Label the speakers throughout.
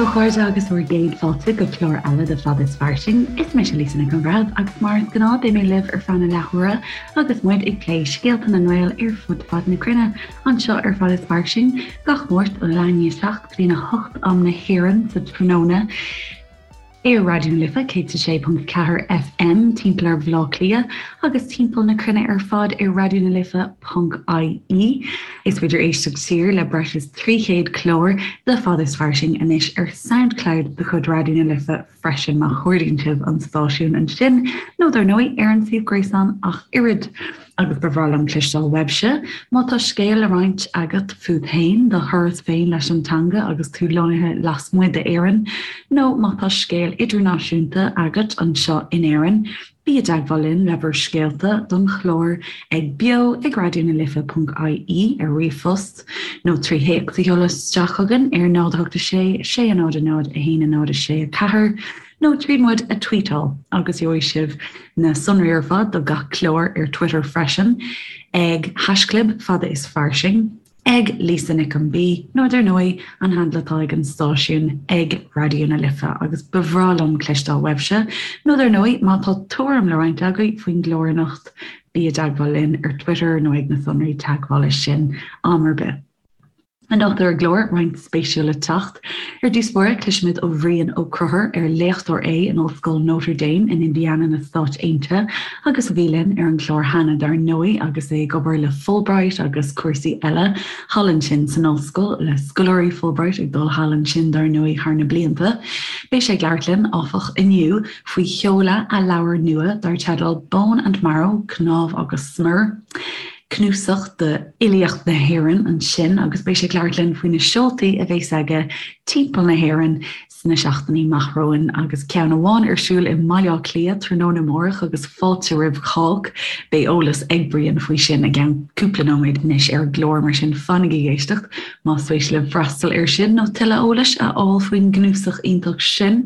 Speaker 1: daoibh a chairde agus bhur gcéad fáilte go clár eile de Fada is Fairsing. Is mise Lisa Nic an Bhreithimh agus mar is gnáth beidh mé libh ar feadh na leathuaire agus muid ag plé scéalta na nGael ar fud fad na cruinne anseo ar Fada is Fairsing gach Máirt ó leath i ndiaidh a 7 go dtí a 8 am na hÉireann sa tráthnóna. Ar Raidió na Life 106.4 FM timpeall ar Bhaile Átha Cliath agus timpeall na cruinne ar fad ar raidionalife.ie. Is féidir éisteacht siar le breis is 300 clár de Fada is Fairsing anois ar Soundcloud de chuid Raidió na Life freisin má chuardaíonn sibh an stáisiún ansin nó dar ndóigh ar an suíomh gréasáin ach oiread. Agus ba bhreá liom cloisteáil uaibhse má tá scéal le roinnt agat fút féin, do thuras féin leis an teanga agus tú lonnaithe lasmuigh d'Éirinn, nó má tá scéal idirnáisiúnta agat anseo in Éirinn, bí i dteagmháil linn le bhur scéalta don chlár ag beo ag raidionalife.ie ar ríomhphost, nó trí théacs a sheoladh isteach chugainn ar 0 8 6 6 0 0 1 0 6 4. nó tríd muid a tweetáil agus gheobhaidh sibh na sonraí ar fad do gach clár ar Twitter freisin ag haischlib fada is fairsing, ag Lisa Nic an B nó dar ndóigh an handle atá ag an stáisiún ag Raidió na Life agus ba bhreá liom cloisteáil uaibhse nó dar ndóigh má tá tuairim le roinnt agaibh faoin gclár anocht bí i dteagmháil linn ar Twitter nó ag na sonraí teagmhála sin am ar bith. Anocht ar an gclár, roinnt spéisiúil le teacht. Ar dtús báire, cloisfimid ó Bhrian Ó Conchúir, ar léachtóir é in Ollscoil Notre Dame in Indiana na Stáit Aontaithe agus a bhí linn ar an gclár cheana dar ndóigh agus é ag obair le Fulbright agus cúrsaí eile thall ansin san ollscoil, le scoláirí Fulbright ag dul thall ansin dar ndóigh thar na blianta. Beidh sé ag labhairt linn, áfach, inniu faoi sheoladh a leabhair nua dar teideal Bone and Marrow, Cnámh agus Smior. cnuasach d'fhilíocht na hÉireann ansin agus beidh sé ag labhairt linn faoi na seoltaí a bheas aige timpeall na hÉireann sna seachtainí amach romhainn agus ceann amháin ar siúl i mBaile Átha Cliath tráthnóna amárach agus fáilte roimh chách. Beidh eolas ag Brian faoi sin i gceann cúpla nóiméad anois ar an gclár mar sin fanaigí ag éisteacht más spéis libh freastal air sin nó tuilleadh eolais a fháil faoin gcnuasach iontach sin.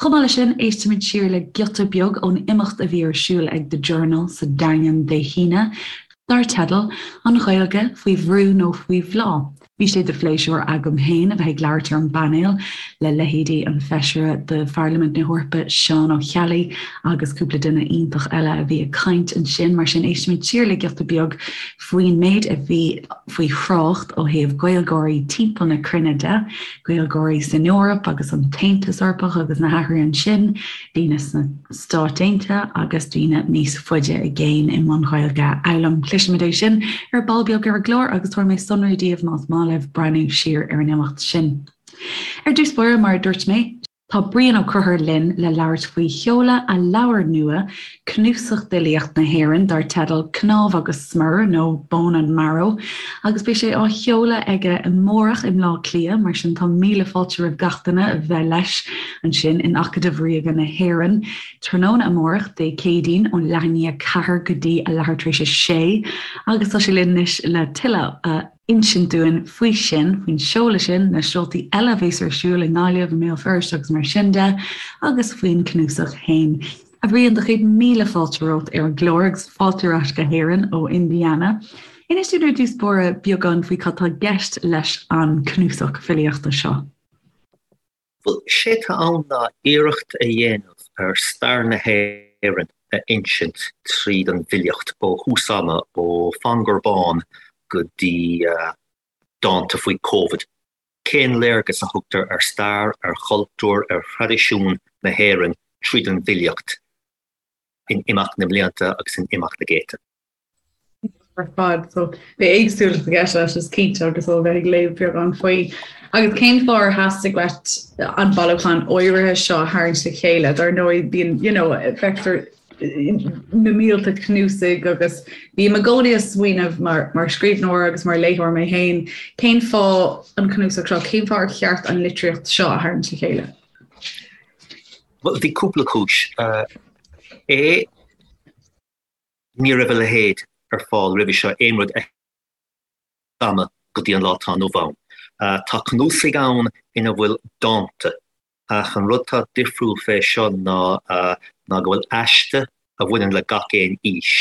Speaker 1: Chomh maith leis sin, éistfimid siar le giota beag ón imeacht a bhí ar siúl ag The Journal sa Daingean Dé hAoine, dar teideal 'An Ghaeilge faoi bhrú nó faoi bhláth? Bhí sé de phléisiúr agam féin a bheith ag labhairt ar an bpainéal le leithéidí an Feisire de Pharlaimint na hEorpa Seán Ó Ceallaigh agus cúpla duine iontach eile a bhí ag caint ansin. Mar sin, éistfimid siar le giota beag faoin méid a bhí faoi thrácht ó thaobh Gaeilgeoirí timpeall na cruinne de, Gaeilgeoirí san Eoraip agus an tAontas Eorpach agus na hathruithe ansin, daoine sna Stáit Aontaithe agus daoine níos faide i gcéin i mbun Gaeilge a fhoghlaim. Cloisfimid é sin ar ball beag ar an gclár agus tabharfaidh mé sonraí daoibh más maith libh breathnú siar ar an imeacht sin. Ar dtús báire, mar a dúirt mé, Tá Brian Ó Conchúir linn le labhairt faoi sheoladh a leabhair nua, cnuasach d'fhilíocht na hÉireann dar teideal Cnámh agus Smior nó Bone and Marrow, agus beidh sé á sheoladh aige amárach i mBleá Cliath, mar sin tá míle fáilte roimh gach duine a bheith leis ansin in Acadamh Ríoga na hÉireann tráthnóna amárach, Dé Céadaoin, ón leath i ndiaidh a ceathair go dtí a leathuair tar éis a sé agus tá sé linn anois le tuilleadh a insint dúinn faoi sin, faoin seoladh sin, na seoltaí eile a bheas ar siúl i nGaillimh, i mBéal Feirste agus mar sin de, agus faoin cnuasach féin. A Bhriain, do chéad míle fáilte romhat ar an gclár agus fáilte ar ais go hÉirinn ó Indiana. Inis dúinn ar dtús báire beagán faoi cad tá i gceist leis an cnuasach filíochta seo.
Speaker 2: Bhuel, sé atá ann ná iarracht a dhéanamh ar stair na hÉireann a insint tríd an bhfilíocht, ó thús ama, ó Phangur Bán go dtí dánta faoi Covid. Cén léargas a thugtar ar stair, ar chultúr, ar thraidisiún na hÉireann tríd an bhfilíocht in imeacht na mblianta agus in imeacht na gcéadta?
Speaker 3: ar fad. So beidh éagsúlacht i gceist leis is cinnte agus ó bheith ag léamh beagán faoi. Agus cén fáth ar theastaigh uait an bailiúchán áirithe seo a tharraingt le chéile? Dar ndóigh bíonn you know, feictear na mílte cnuasaigh agus bím i gcónaí ag smaoineamh mar, mar scríbhneoir agus mar léitheoir mé féin, cén fáth an cnuasach seo, cén fáth ar cheart an litríocht seo a tharraingt le chéile?
Speaker 2: Well, bhí cúpla cúis. Uh, é Ní raibh a leithéid ar fáil roimhe seo, aon rud ama go dtí an lá atá inniu ann. Tá cnuasaigh ann ina bhfuil dánta, ach an rud atá difriúil fé seo ná ná go bhfuil aiste a bhaineann le gach aon aois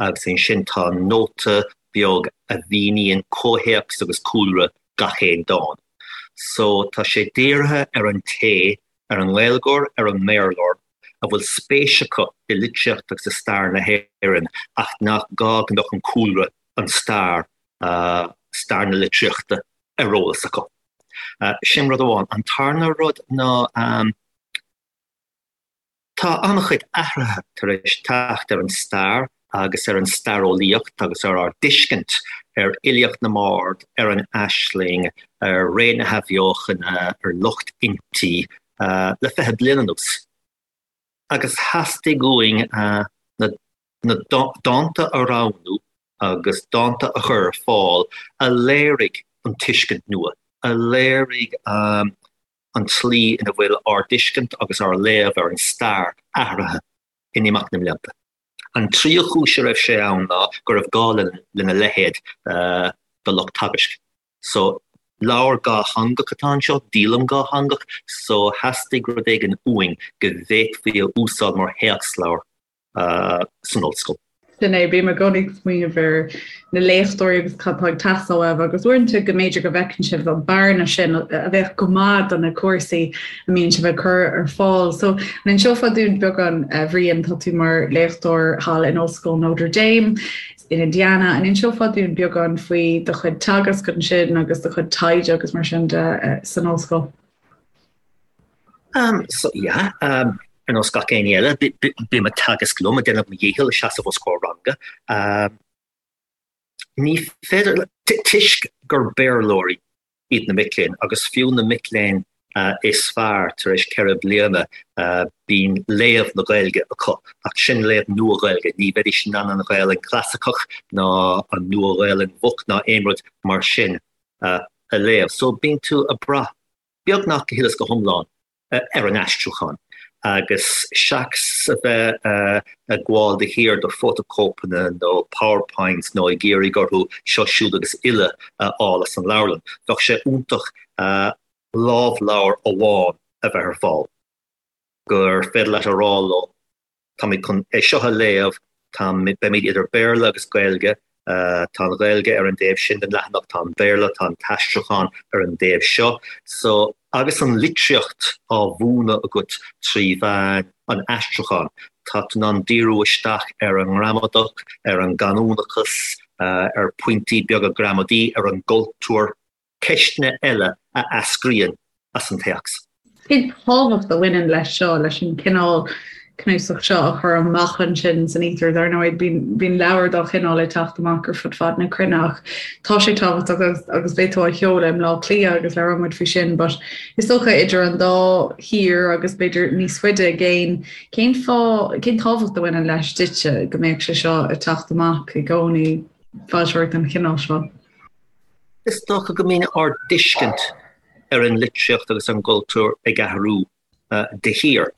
Speaker 2: agus ansin tá nóta beag a mhíníonn comhthéacs agus cúlra gach aon dán. So tá sé dírithe ar an té, ar an nGaeilgeoir, ar an mBéarlóir, a bhfuil spéis acu i litríocht agus i stair na hÉireann ach nach gá go mbeadh an cúlra, an stair, stair na litríochta ar eolas acu. Sin rud amháin. An tarna rud ná tá an-chuid athruithe tar éis teacht ar an stair agus ar an staireolaíocht agus ar ár dtuiscint ar fhilíocht na mbard, ar an aisling, ar ré na hAthbheochana, ar lucht innti le 20 bliain anuas. Agus theastaigh uainn na dánta a roghnú agus dánta a chur ar fáil a léirigh an tuiscint nua, a léirigh an tslí ina bhfuil ár dtuiscint agus ár léamh ar an stair athraithe in imeacht na mblianta. An tríú cúis a raibh sé ann ná go raibh gá lena leithéid do lucht teagaisc. So, leabhar dhátheangach atá anseo, díolaim dhátheangach, so theastaigh rud éigin uainn go bhféadfaí a úsáid mar théacsleabhar san ollscoil.
Speaker 3: Sin é, bím i gcónaí ag smaoineamh ar na léachtóirí agus cad atá ag teastáil uaibh agus uaireanta go mb'fhéidir go bhfeiceann sibh an bearna sin a bheadh go maith do na cúrsaí a mbíonn sibh ag cur ar fáil. So, an inseofá dúinn beagán, a Bhriain, tá tú mar léachtóir thall in Ollscoil Notre Dame in Indiana, an inseofá dúinn beagán faoi do chuid teagasc ansin agus do chuid taighde agus mar sin de san ollscoil?
Speaker 2: Um, so, yeah, um, ar nós gach éinne eile, bím ag teagasc liom, ag déanamh mo dhícheall ag seasamh os comhair ranga. Um, ní féidir, toisc gur Béarlóirí iad na mic léinn, agus fiú na mic léinn uh, is fearr tar éis 4 bliana uh, bíonn léamh na Gaeilge acu, ach sin léamh nua-Ghaeilge, ní bheidís in ann an Ghaelainn chlasaiceach ná an nua-Ghaelainn mhoch ná aon rud mar sin uh, a léamh. So bíonn tú ag brath beagnach go huile is go hiomlán ar an aistriúchán agus seachas a bheith ag gabháil de shíor do fótachóipeanna nó PowerPoints nó ag iarraidh orthu seo siúd agus uile a fháil as an leabharlann, bheadh sé iontach lámhleabhar amháin a bheith ar fáil gur féidir leat a rá leo Táimid chun é seo a léamh, beimid idir Béarla agus Gaeilge, tá an Ghaeilge ar an dtaobh sin den leathanach, tá an Béarla, tá an t-aistriúchán ar an dtaobh seo. So, agus an litríocht á mhúineadh agat trí mheán an aistriúcháin, tá tú in ann díriú isteach ar an ngramadach, ar an gcanúnachas, ar phointí beaga gramadaí, ar an gcultúr. ceisteanna eile a eascraíonn as an téacs.
Speaker 3: Cén tábhacht a bhaineann leis seo, leis an cineál cnuasach seo a chur amach ansin san íotar? Dar ndóigh, bíonn leabhair dá chineál ag teacht amach ar fud fad na cruinne ach tá sé tábhachtach agus, agus beidh tú á sheoladh i mBleá Cliath agus labhróidh muid faoi sin, but is dócha idir an dá thír agus b'fhéidir níos faide i gcéin, cén fáth, cén tábhacht a bhaineann leis duitse go mbeadh sé seo ag teacht amach i gcónaí, foilsitheoireacht den chineál seo?
Speaker 2: Is dócha go mbíonn ár dtuiscint ar an litríocht agus an gcultúr ag athrú de shíor.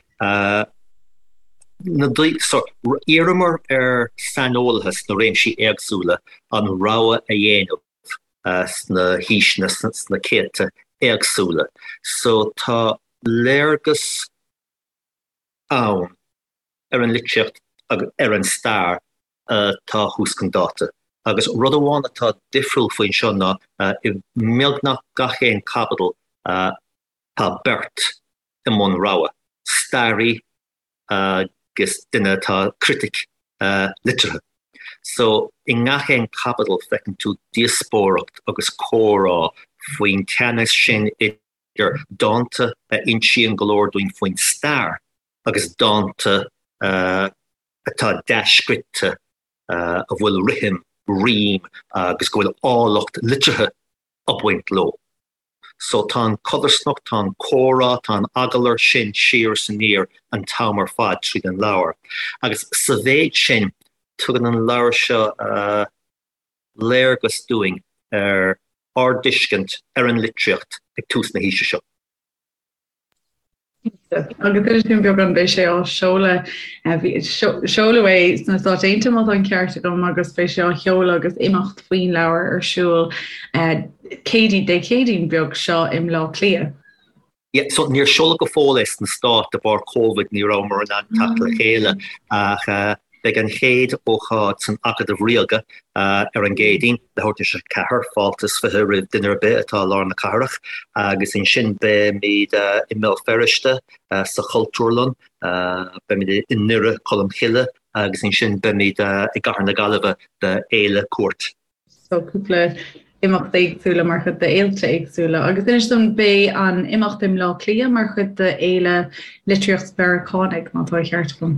Speaker 2: D'iarramar ar saineolaithe sna réimsí éagsúla an rogha a dhéanamh sna haoiseanna, sna céadta éagsúla. So tá léargas ann ar an litríocht agus ar an stair atá thuas chun dáta. Agus rud amháin atá difriúil faoin seo ná i mbeagnach gach aon chaibidil tá beirt i mbun rogha, staraí agus duine atá critic liteartha. So i ngach aon chaibidil feiceann tú díospóireacht agus comhrá faoin teannas sin idir dánta a insíonn go leor dúinn faoin stair agus dánta atá dea-scrite, a bhfuil rithim, rím agus go bhfuil áilleacht liteartha ag baint leo. So tá an chodarsnacht, tá an comhrá, tá an agallamh sin siar is aniar an t-am ar fad tríd an leabhar. Agus sa mhéid sin, tugann an leabhar seo léargas dúinn ar ár dtuiscint ar an litríocht ag tús na haoise seo.
Speaker 3: Agus inis dúinn beagán beidh sé á seoladh, seoladh é sna Stáit Aontaithe má tá an ceart agam agus beidh sé á sheoladh agus imeacht faoin leabhar ar siúl Céadaoin, Dé Céadaoin beag seo i mBleá Cliath.
Speaker 2: Yeah, so níor seoladh go fóill é sna Stáit de bharr Covid, ní rabhamar in ann teacht le chéile ach. Beidh an chéad ócáid san Acadamh Ríoga ar an gCéadaoin, leathuair tar éis a 4, fáilte is 20 roimh duine ar bith atá i lár na cathrach, agus ansin beimid i mBéal Feirste sa Chultúrlann, beimid i nDoire Cholm Cille agus ansin beimid i gCathair na Gaillimhe do Fhéile Cúirt.
Speaker 3: So cúpla imeacht éagsúla mar chuid de fhéilte éagsúla. Agus inis dom, beidh an imeacht i mBleá Cliath mar chuid de Fhéile Litríocht Mheiriceánaigh, má tá an ceart agam?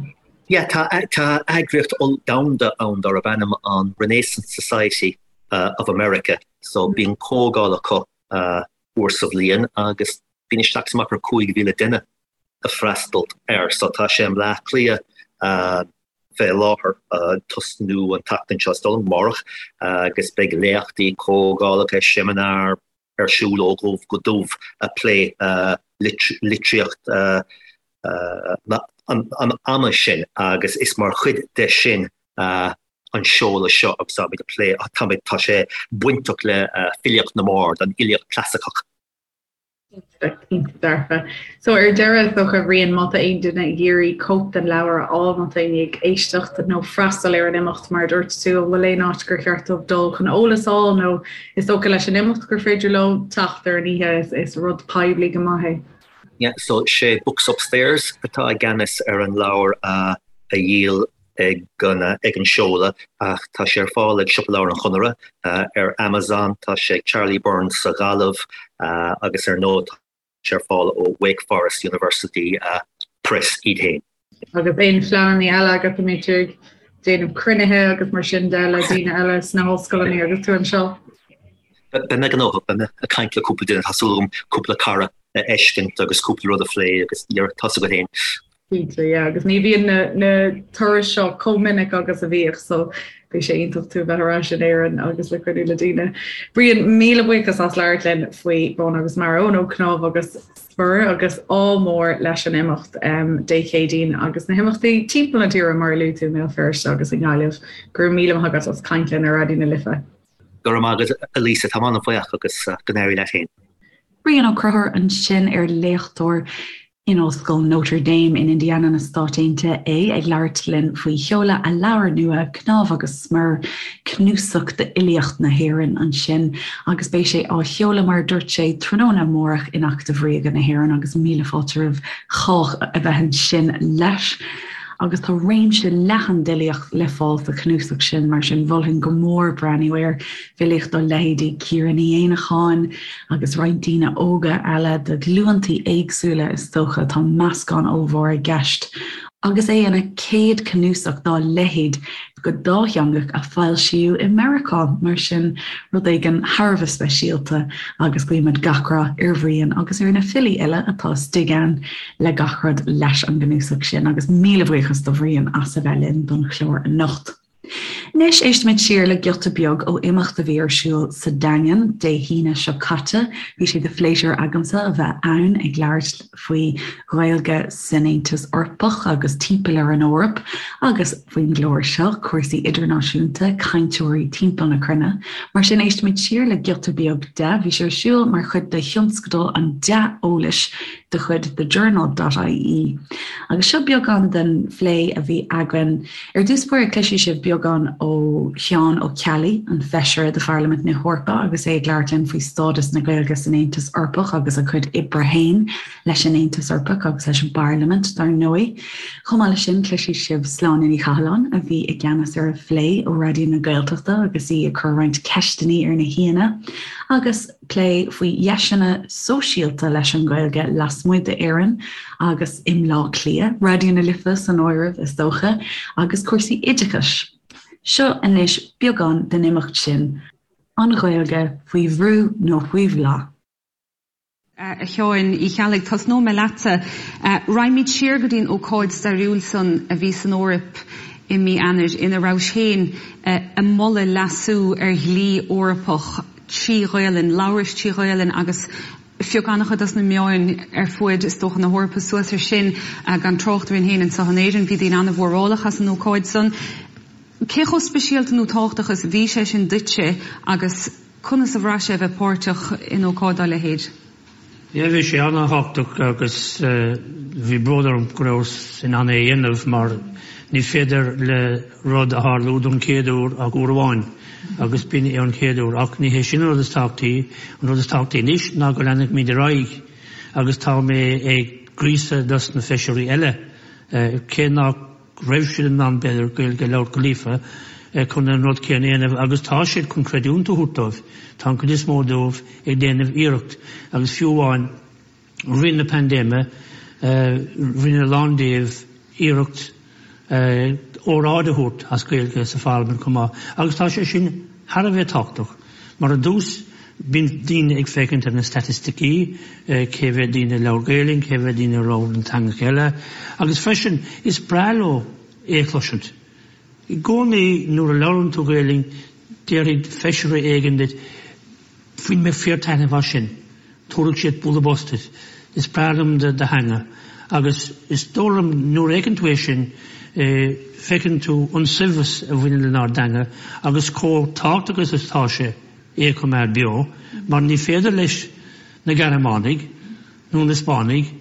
Speaker 2: Yeah, tá tá eagraíocht domhanda ann darb ainm an Renaissance Society of America, so bíonn comhdháil acu uair sa bhliain agus bíonn isteach is amach ar 5,000 duine ag freastal air. So tá sé i mBleá Cliath fé láthair, ag tosnú an tseachtain seo, is dóigh liom, amárach, agus beidh léachtaí, comhdhálacha, seimineáir ar siúl ó dhubh go dubh ag plé litríocht an ama sin agus is mar chuid de sin an seoladh seo agus táimid ag plé, táimid, tá sé bainteach le filíocht na mbard, an fhilíocht chlasaiceach.
Speaker 3: Cinnte dearfa. So ar deireadh, is dócha, Bhriain, má tá aon duine ag iarraidh cóip den leabhar a fháil, má tá éinne ag éisteacht nó freastal ar an imeacht mar a dúirt tú, an bhfuil aon áit gur cheart dóibh dul chun eolas a fháil nó is dócha leis an imeacht gur féidir leo teacht ar an oíche, is rud poiblí go maith é.
Speaker 2: Yeah, so sé Books Upstairs atá i gceannas ar an leabhar a dhíol ag an seoladh ach tá sé ar fáil ag Siopa Leabhar an Chonartha, ar Amazon, tá sé ag Charlie Byrne's sa Ghaillimh agus ar ndóigh tá sé ar fáil ó Wake Forest University Press iad féin.
Speaker 3: Agus aon phleananna eile agat, an mbeidh tú ag déanamh cruinnithe agus mar sin de le daoine eile sna hollscoileanna agus tú anseo?
Speaker 2: Beidh mé gnóthach, beidh mé ag caint le cúpla duine, tá súil agam cúpla cara a fheiscint agus cúpla rud a phlé agus tá a fhios agat féin.
Speaker 3: Cinnte, yeah, agus ní bhíonn na, na turais seo chomh minic agus a bhíodh, so beidh sé iontach tú a bheith ar ais in Éirinn agus le cruinniú le daoine. Brian, míle buíochas as labhairt linn faoi Brón agus Mearbhall, nó Cnámh agus Smior agus ádh mór leis an imeacht um, Dé Céadaoin agus na himeachtaí timpeall na tíre mar a luaigh tú i mBéal Feirste agus i nGaillimh. Go raibh míle maith agat as caint linn ar Raidió na Life.
Speaker 2: Go raibh maith agat, a Lisa, táim an-bhuíoch agus go n-éirí leat féin.
Speaker 1: Brian Ó Conchúir ansin ar léachtóir In Ollscoil Notre Dame in Indiana na Stáit Aontaithe é ag labhairt linn faoi sheoladh a leabhair nua, Cnámh agus Smior, cnuasach d'fhilíocht na hÉireann ansin agus beidh sé á sheoladh mar a dúirt sé tráthnóna amárach in Acadamh Ríoga na hÉireann agus míle fáilte roimh chách a bheith ansin leis. Agus tá réimse leathan d'fhilíocht le fáil sa chnuasach sin, mar sin mholfainn go mór breathnú air, filíocht ó leithéidí Ciara Ní Éanacháin, agus roinnt daoine óga eile de ghlúntaí éagsúla is dócha, tá meascán ollmhór i gceist agus é ina chéad chnuasach dá leithéid go dátheangach a foilsíodh i Meiriceá, mar sin rud éigin thar a bheith speisialta agus guímid gach rath ar Bhrian agus ar na filí uile atá istigh ann le gach rud leis an gcnuasach sin agus míle buíochas do Bhrian as a bheith linn don chlár anocht. Anois éistfimid siar le giota beag ó imeacht a bhí ar siúl sa Daingean Dé hAoine seo caite. Bhí sé de phléisiúr agamsa a bheith ann ag labhairt faoi Ghaeilge san Aontas Eorpach agus timpeall ar an Eoraip agus faoin gclár seo, cúrsaí idirnáisiúnta, cainteoirí timpeall na cruinne. Mar sin éistfimid siar le giota beag de. Bhí sé ar siúl mar chuid de thionscadal an dea-eolais de chuid The Journal dot ie. Agus seo beagán den phlé a bhí againn. Ar dtús báire cloisfidh sibh beagán ó Sheán Ó Ceallaigh, an Feisire de Pharlaimint na hEorpa agus é ag labhairt linn faoi stádas na Gaeilge san Aontas Eorpach agus a chuid oibre féin leis an Aontas Eorpach agus leis an bParlaimint dar ndóigh. Chomh maith leis sin cloisfidh sibh Sláine Ní Chathalláin a bhí i gceannas ar an phlé ó Raidió na Gaeltachta agus í ag cur roinnt ceisteanna ar na haíonna agus plé faoi dheiseanna sóisialta leis an Ghaeilge lasmuigh d'Éirinn agus i mBleá Cliath, Raidió na Life san áireamh is dócha, agus cúrsaí oideachais. Seo anois beagán den imeacht sin, An Ghaeilge faoi bhrú nó faoi bhláth?
Speaker 4: A Sheáin Uí Cheallaigh, tosnóidh mé leatsa. Raghaimid siar go dtí an ócáid stairiúil san a bhí san Eoraip i mí Eanáir ina rabhais féin ag moladh leasú ar dhlí Eorpach trí Ghaelainn, labhrais trí Ghaelainn agus phioc an-chuid dos na meáin ar fuaid, is dócha, na hEorpa suas ar sin, gan trácht orainn féin anseo in Éirinn. Bhí daoine an-mhórálach as an ócáid san. Cé chomh speisialta nó tábhachtach is a bhí sé sin duitse agus conas a bhraith sé a bheith páirteach in ócáid dá leithéid?
Speaker 5: Yeah, bhí sé an-tábhachtach agus bhí bród orm go rabhas in ann é a dhéanamh mar ní féidir le rud a tharlú don chéad uair ach uair amháin agus b'in é an chéad uair. Ach ní hé sin an rud is tábhachtaí, an rud is tábhachtaí anois ná go leanfaimid ar aghaidh agus tá mé ag gríosadh dos na feisirí eile cé nach raibh siad in ann b'fhéidir Gaeilge a labhairt go líofa chun an rud céanna a dhéanamh agus tá siad chun creidiúint a thabhairt dóibh, tá an chuid is mó dóibh ag déanamh iarracht agus fiú amháin rith na paindéime rinne a lán díobh iarracht óráid a thabhairt as Gaeilge sa pharlaimint chomh maith agus tá sé sin thar a bheith tábhachtach mar ar dtús bíonn daoine ag féachaint ar na staitisticí, cé mhéad daoine a labhair Gaelainn, cé mhéad daoine a labhair na teangacha eile agus freisin is breá leo é a chloisint. I gcónaí nuair a labhrann tú Gaelainn déarfaidh feisire éigin duit Bhain mé fíor-taitneamh as sin. Tabharfaidh siad bualadh bos duit. Is breá liom do theanga. Agus is dóigh liom nuair a fheiceann tú é sin, feiceann tú an saibhreas a bhaineann lenár dteanga agus chomh tábhachtach is atá sé é a choimeád beo, mar ní féidir leis na Gearmánaigh nó na Spáinnigh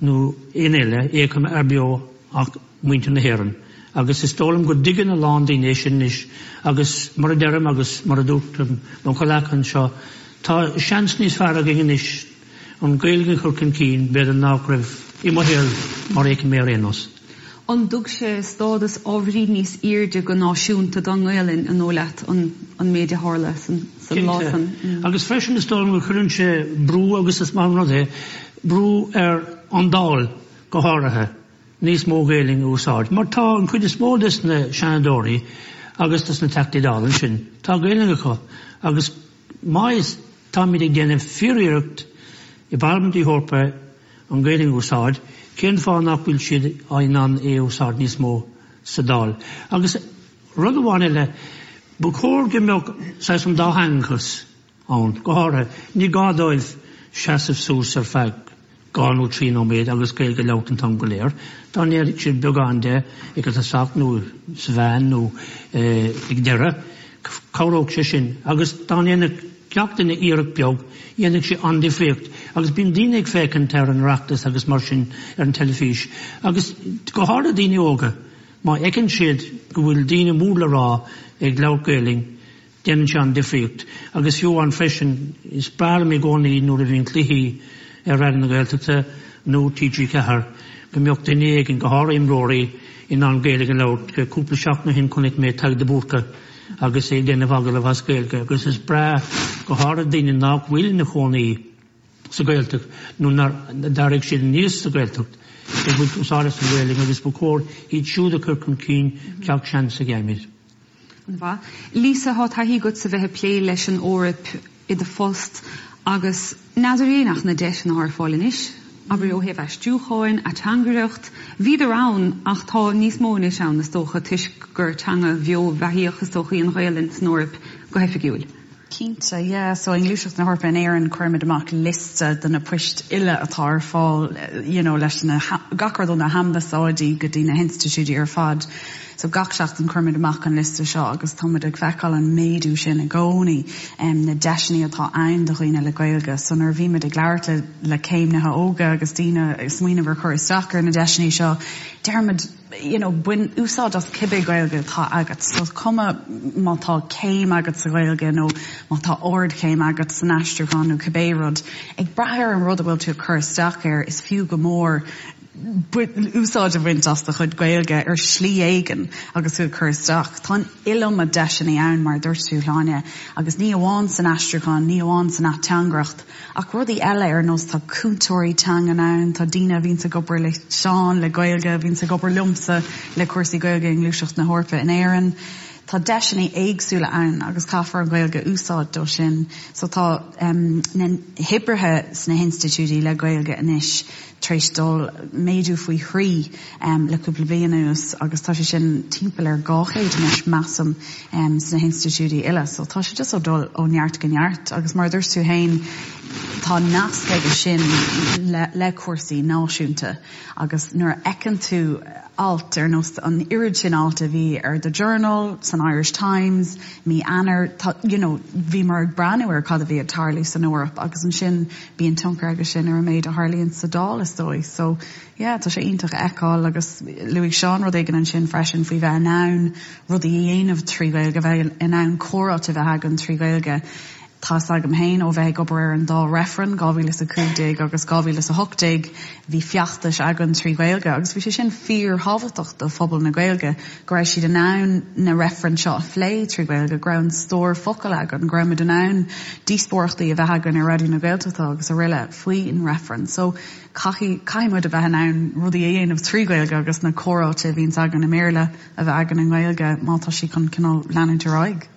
Speaker 5: nó éinne eile é a choimeád beo ach muintir na hÉireann agus is dóigh liom go dtuigeann a lán daoine é sin anois agus mar a deirim agus mar a dúirt mo chomhleacaithe anseo, tá seans níos fearr againn anois an Ghaeilge a chur chun cinn b'fhéidir ná go raibh i mo shaol mar a fheiceann mé ar aon nós.
Speaker 4: An dtug sé stádas ábhairín níos airde go náisiúnta don nGaelainn, an dóigh leat, an méid a tharla san lá
Speaker 5: san? Cinnte. Agus freisin is dóigh liom go gcuireann sé brú, agus is maith an rud é, brú ar an Dáil go háirithe. níos mó Gaelainn a úsáid, mar tá an chuid is mó des na Seanadóirí agus des na Teachtaí Dála ansin, tá Gaelainn acu agus má is táimid ag déanamh fíor-iarracht i bParlaimint na hEorpa an Ghaelainn a úsáid, cén fáth nach bhfuil siad in ann é a úsáid níos mó sa Dáil? Agus rud amháin eile, ba chóir go mbeadh saghas an dátheangachas ann. Go háirithe, ní gá dóibh seasamh suas ar feadh 2 nó 3 nóiméad agus Gaeilge a labhairt an t-am go léir. Dá ndéanfadh siad beagán de ag an tosach nó sa mheán nó ag deireadh, cabhródh sé sin. Agus dá ndéanfadh gach duine iarracht beag, dhéanfadh sé an-difríocht. Agus bíonn daoine ag féachaint ar an Oireachtas agus mar sin ar an teilifís, agus go háirithe daoine óga, má fheiceann siad go bhfuil daoine mór le rá ag labhairt Gaelainn, Déanann sé an-difríocht. Agus fiú amháin freisin, is breá liom i gcónaí nuair a bhíonn cluichí ar Raidió na Gaeltachta nó TG4 go mbeadh duine éigin, go háirithe imreoirí, in ann Gaeilge a labhairt. Cúpla seachtain ó shin chonaic mé Tadhg de Búrca agus é ag déanamh agallamh as Gaeilge agus is breá, go háirithe daoine nach bhfuil ina chónaí sa Ghaeltacht nó nár d'éirigh siad aníos sa Ghaeltacht, ag baint úsáid as an Ghaeilge agus ba chóir iad siúd a chur chun cinn gach seans a gheibhimid.
Speaker 4: An-mhaith. Lisa, tá taithí agat sa bheith ag plé leis an Eoraip i do phost agus n'fheadar féin ach na deiseanna atá ar fáil anois, abair ó thaobh aistriúcháin, ateangaireacht, bhíodar ann ach tá níos mó anois ann is dócha toisc gur teanga bheo bheathaíoch is dócha í an Ghaelainn san Eoraip go hoifigiúil.
Speaker 3: Cinnte, yeah. So i nGluaiseacht na hEorpa in Éirinn cuirimid amach liosta de na poist uile atá ar fáil you know leis na, gach rud ó na hambasáidí go dtí na hinstitiúidí ar fad. So gach seachtain cuirimid amach an liosta seo agus táimid ag feiceáil an méadú sin i gcónaí, na deiseanna atá ann do dhaoine le Gaeilge. So nuair a bhímid ag labhairt le le céimnithe óga agus daoine ag smaoineamh ar chur isteach ar na deiseanna seo, deirimid, you know, bain úsáid as cibé Gaeilge atá agat. So is cuma má tá céim agat sa Ghaeilge nó má tá ardchéim agat san aistriúchán nó cibé rud, ag brath ar an rud a bhfuil tú ag cur isteach air, is fiú go mór úsáid a bhaint as do chuid Gaeilge ar shlí éigin agus tú ag cur isteach. Tá an iliomad deiseanna ann, mar a dúirt tú, Shláine, agus ní amháin san aistriúchán, ní amháin san ateangaireacht, Ach rudaí eile ar nós tá cúntóirí teangan ann, tá daoine a bhíonns ag obair le Seán le Gaeilge, a bhíonns ag obair liomsa le cúrsaí Gaeilge i nGluaiseacht na hEorpa in Éirinn. Tá deiseanna éagsúla ann agus caithfear an Ghaeilge a úsáid dó sin. So tá na hoibrithe sna hinstitiúidí le Gaeilge anois tar éis dul méadú faoi thrí le cúpla bliain anuas agus tá sé sin timpeall ar 200 anois measaim sna hinstitiúidí uile. So tá sé just ag dul ó neart go neart agus mar a dúirt tú féin tá nasc aige sin le le cúrsaí náisiúnta agus nuair a fheiceann tú alt ar nós an oiread sin alt a bhí ar The Journal san.
Speaker 1: san Irish Times, mí Eanáir, tá, you know, bhíomar ag breathnú ar cad a bhí ag tarlú san Eoraip agus ansin bíonn tionchar aige sin ar an méid a tharlaíonn sa Dáil is dóigh. So, yeah, tá sé iontach a fheiceáil agus luaigh Seán rud éigin ansin freisin faoi bheith in ann rudaí a dhéanamh trí Ghaeilge, bheith in ann comhráite a bheith againn trí Ghaeilge. Tá's agam féin ó bheith ag obair ar an dá reifreann, 2015 agus 2018, bhí feachtais againn trí Ghaeilge agus bhí sé sin fíorthábhachtach do phobal na Gaeilge, go raibh siad in ann na reifrinn seo a phlé trí Ghaeilge, go raibh an stór focal againn, go raibh muid in ann díospóireachtaí a bheith againn ar Raidió na Gaeltachta agus araile faoin reifreann. So caithfidh, caithfidh muid a bheith in ann rudaí a dhéanamh trí Ghaeilge agus na comhráite a bhíonns againn i mBéarla a bheith againn i nGaeilge má tá sí chun cineál leanúint ar aghaidh.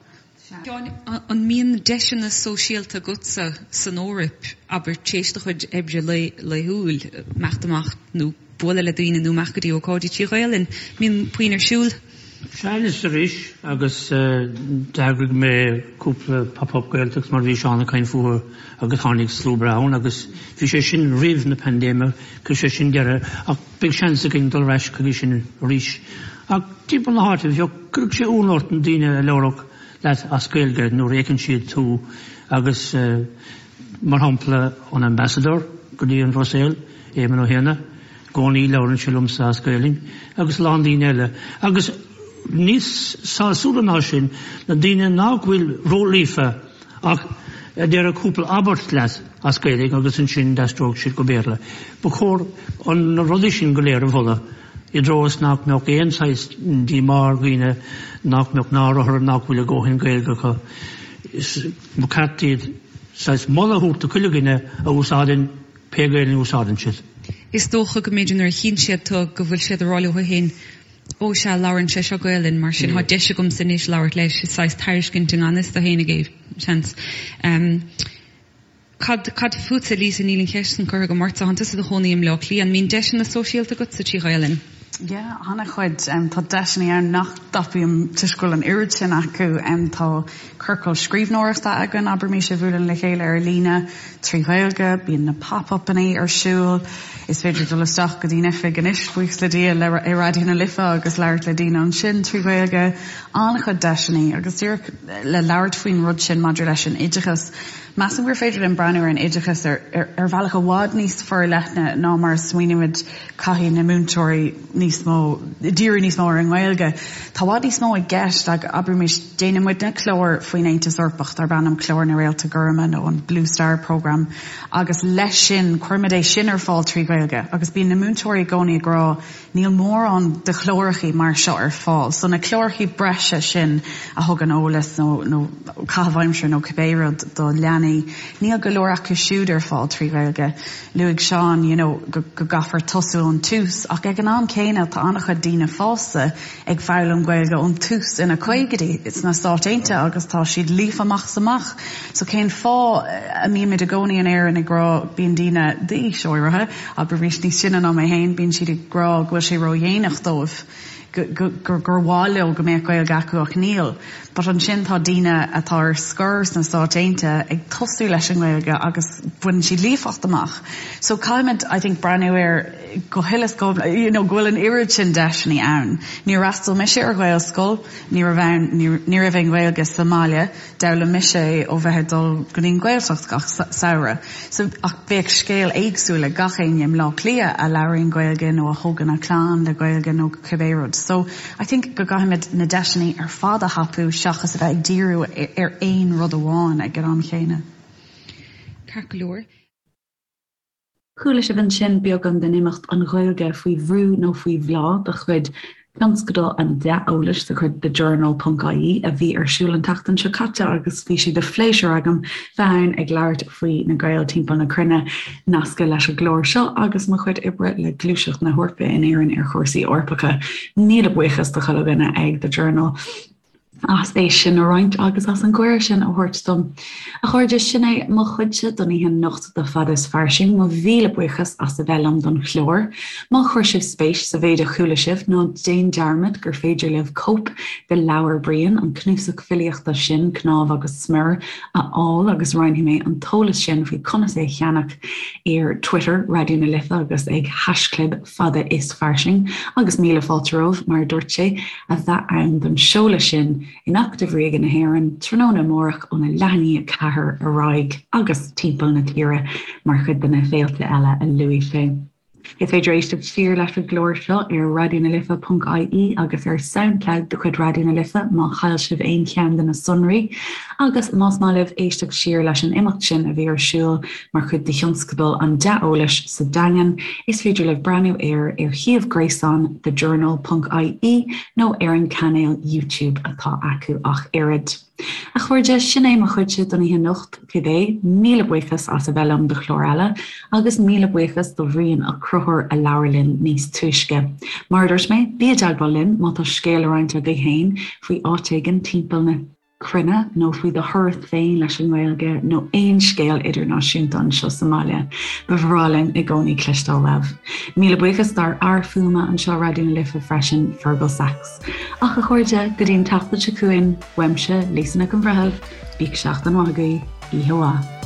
Speaker 4: Seán, an mbíonn deiseanna sóisialta agatsa san Eoraip, abair, tar éis do chuid oibre laethúil, imeacht amach nó bualadh le daoine nó imeacht go dtí ócáidí trí Ghaelainn? Mbíonn puinn ar siúl?
Speaker 5: Sea, anois is arís, agus d'eagraigh mé cúpla Pop Up Gaeltacht mar bhí Seán ag caint fúthu agus tháinig slua breá ann agus bhí sé sin roimh na paindéime, chuir sé sin deireadh ach beidh seans againn dul ar ais chuige sin arís. Ach timpeall na háite, bheadh, cuirfeadh sé ionadh ort na daoine a labhródh leat as Gaeilge nuair a fheiceann siad tú agus mar shampla an Ambassador go dtí an Bhruiséil, Éamon Ó hÉanna, i gcónaí labhrann sé liomsa as Gaelainn agus a lán daoine eile. Agus níos sásúla ná sin, na daoine nach bhfuil ró-líofa ach a déarfadh cúpla abairt leat as Gaeilge agus ansin d'aistreodh siad go Béarla. Ba chóir na rudaí sin go léir a mholadh i dtreo is nach mbeadh aon saghas díomá ar dhaoine nach mbeadh náire orthu nach bhfuil a dhóthain Gaeilge acu. Ba cheart iad saghas moladh a thabhairt do chuile dhuine a úsáideann pé Gaeilge a úsáideann siad.
Speaker 4: Is dócha go mb'fhéidir nuair a chíonn siad tú go bhfuil siad ag rá leo féin Ó sea, labhrann sé seo Gaelainn, mar sin tá deis agamsa anois labhairt leis. Is saghas tairiscint i ngan fhios dó fhéinig é, seans. Cad, cad fútsa, Lisa, níl an cheist san curtha agam ortsa, tánn tusa i do chónaí i mBleá Cliath, an mbíonn deiseanna sóisialta agatsa trí Ghaelainn?
Speaker 1: Yeah, an-chuid. Tá deiseanna ann nach dtapaím toisc go bhfuil an oiread sin acu. Tá ciorcal scríbhneoireachta againn, abraimis, a bhuaileann le chéile ar líne trí Ghaeilge, bíonn na pop-upannaí ar siúl, is féidir dul isteach go dtí'n oifig anois, buíochas le Dia, le i Raidió na Life agus labhairt le daoine ansin trí Ghaeilge. An-chuid deiseanna agus díreach le labhairt faoin rud sin maidir leis an oideachas, Measaim gur féidir linn breathnú ar an oideachas ar ar bhealach i bhfad níos forleithne ná mar a smaoinímid caithfidh na múinteoirí níos mó, díriú níos mó ar an nGaeilge. Tá i bhfad níos mó i gceist ag, abraimis, déanann muidne clár faoin Aontas Eorpach darb ainm Clár na Réalta Goirme nó an Blue Star Programme agus leis sin cuirimid é sin ar fáil trí Ghaeilge agus bíonn na múinteoirí i gcónaí ag rá níl mórán de chlárachaí mar seo ar fáil. So na clárachaí breise sin a thugann eolas nó nó caitheamh aimsire nó cibé rud do leanaí, níl go leor acu siúd ar fáil trí Ghaeilge. Luaigh Seán you know go gcaithfear tosú ón tús ach ag an am céanna tá an-chuid daoine fásta ag foghlaim Gaeilge ón tús ina caogaidí sna Stáit Aontaithe agus tá siad líofa amach is amach. So cén fáth a mbímid i gcónaí in Éirinn ag rá bíonn daoine d'aois áirithe, abraimis níos sine ná mé féin, bíonn siad ag rá go bhfuil sé ródhéanach dóibh. gur mhaith leo go mbeadh Gaeilge acu ach níl. But ansin tá daoine atá ar scor sna Stáit Aontaithe ag tosú leis an nGaeilge agus baineann siad líofacht amach. So caithfimid I think breathnú air go huile is go you know go bhfuil an oiread sin deiseanna ann. Níor fhreastail mise ar Ghaelscoil, ní raibh ann ní raibh aon Ghaeilge sa mbaile. D'fhoghlaim mise é ó bheith ag dul go dtí an Ghaeltacht gach samhradh. So, ach bheadh scéal éagsúil ag gach éinne i mBleá Cliath a labhraíonn Gaeilge nó a thógann a clann le Gaeilge nó cibé rud. So, I think go gcaithfimid na deiseanna ar fad a thapú seachas a bheith ag díriú ar aon rud amháin ag an am chéanna.
Speaker 4: Ceart go leor.
Speaker 1: Chuala sibh ansin beagán den imeacht 'An Ghaeilge faoi bhrú nó faoi bhláth' de chuid Thionscadal an Dea-Eolais de chuid The Journal ponc ie a bhí ar siúl an tseachtain seo caite agus bhí sé de phléisiúr agam bheith ann ag labhairt faoi na Gaeil timpeall na cruinne, nasctha leis an gclár seo agus mo chuid oibre le Gluaiseacht na hEorpa in Éirinn ar chúrsaí Eorpacha. Míle buíochas do chuile dhuine ag The Journal. as é sin a roinnt agus as an gcuireadh sin a thabhairt dom. A chairde, sin é mo chuidse don oíche anocht de Fada is Fairsing. Mo mhíle buíochas as a bheith liom don chlár. Má chuir sibh spéis sa mhéid a chuala sibh, ná déan dearmad gur féidir libh cóip de leabhar Brian, an cnuasach filíochta sin, Cnámh agus Smior, a fháil agus roinnfidh mé an t-eolas sin faoi conas é a cheannach ar Twitter Raidió na Life agus ag haischlib Fada is Fairsing agus míle fáilte romhaibh, mar a dúirt sé, a bheith ann don seoladh sin. in Acadamh Ríoga na hÉireann tráthnóna amárach óna leath i ndiaidh 4 ar aghaidh agus timpeall na tíre mar chuid de na féilte eile a luaigh sé. Is féidir éisteacht siar leis an gclár seo ar raidionalife.ie agus ar Soundcloud de chuid Raidió na Life má chaill sibh aon cheann de na sonraí. Agus más maith libh éisteacht siar leis an imeacht sin a bhí ar siúl mar chuid de thionscadal an Dea-Eolais sa Daingean, is féidir libh breathnú air ar shuíomh gréasáin thejournal.ie nó ar an cainéal YouTube atá acu ach oiread. A chairde, sin é mo chuidse don oíche anocht, cibé. Míle buíochas as a bheith liom do chlár eile, agus míle buíochas do Bhrian Ó Conchúir a labhair linn níos túisce. Mar a dúirt mé, bí i dteagmháil linn má tá scéal le roinnt agaibh féin faoi áit éigin timpeall na cruinne nó faoi do thuras féin leis an nGaeilge nó aon scéal idirnáisiúnta anseo sa mbaile. Ba bhreá linn i gcónaí cloisteáil uaibh. Míle buíochas dár fhear fuaime anseo Raidió na Life freisin, Fergal Sachs. Ach a chairde, go dtí an tseachtain seo chugainn, uaimse, Lisa Nic an Bhreithimh, bíodh seachtain mhaith agaibh, oíche mhaith.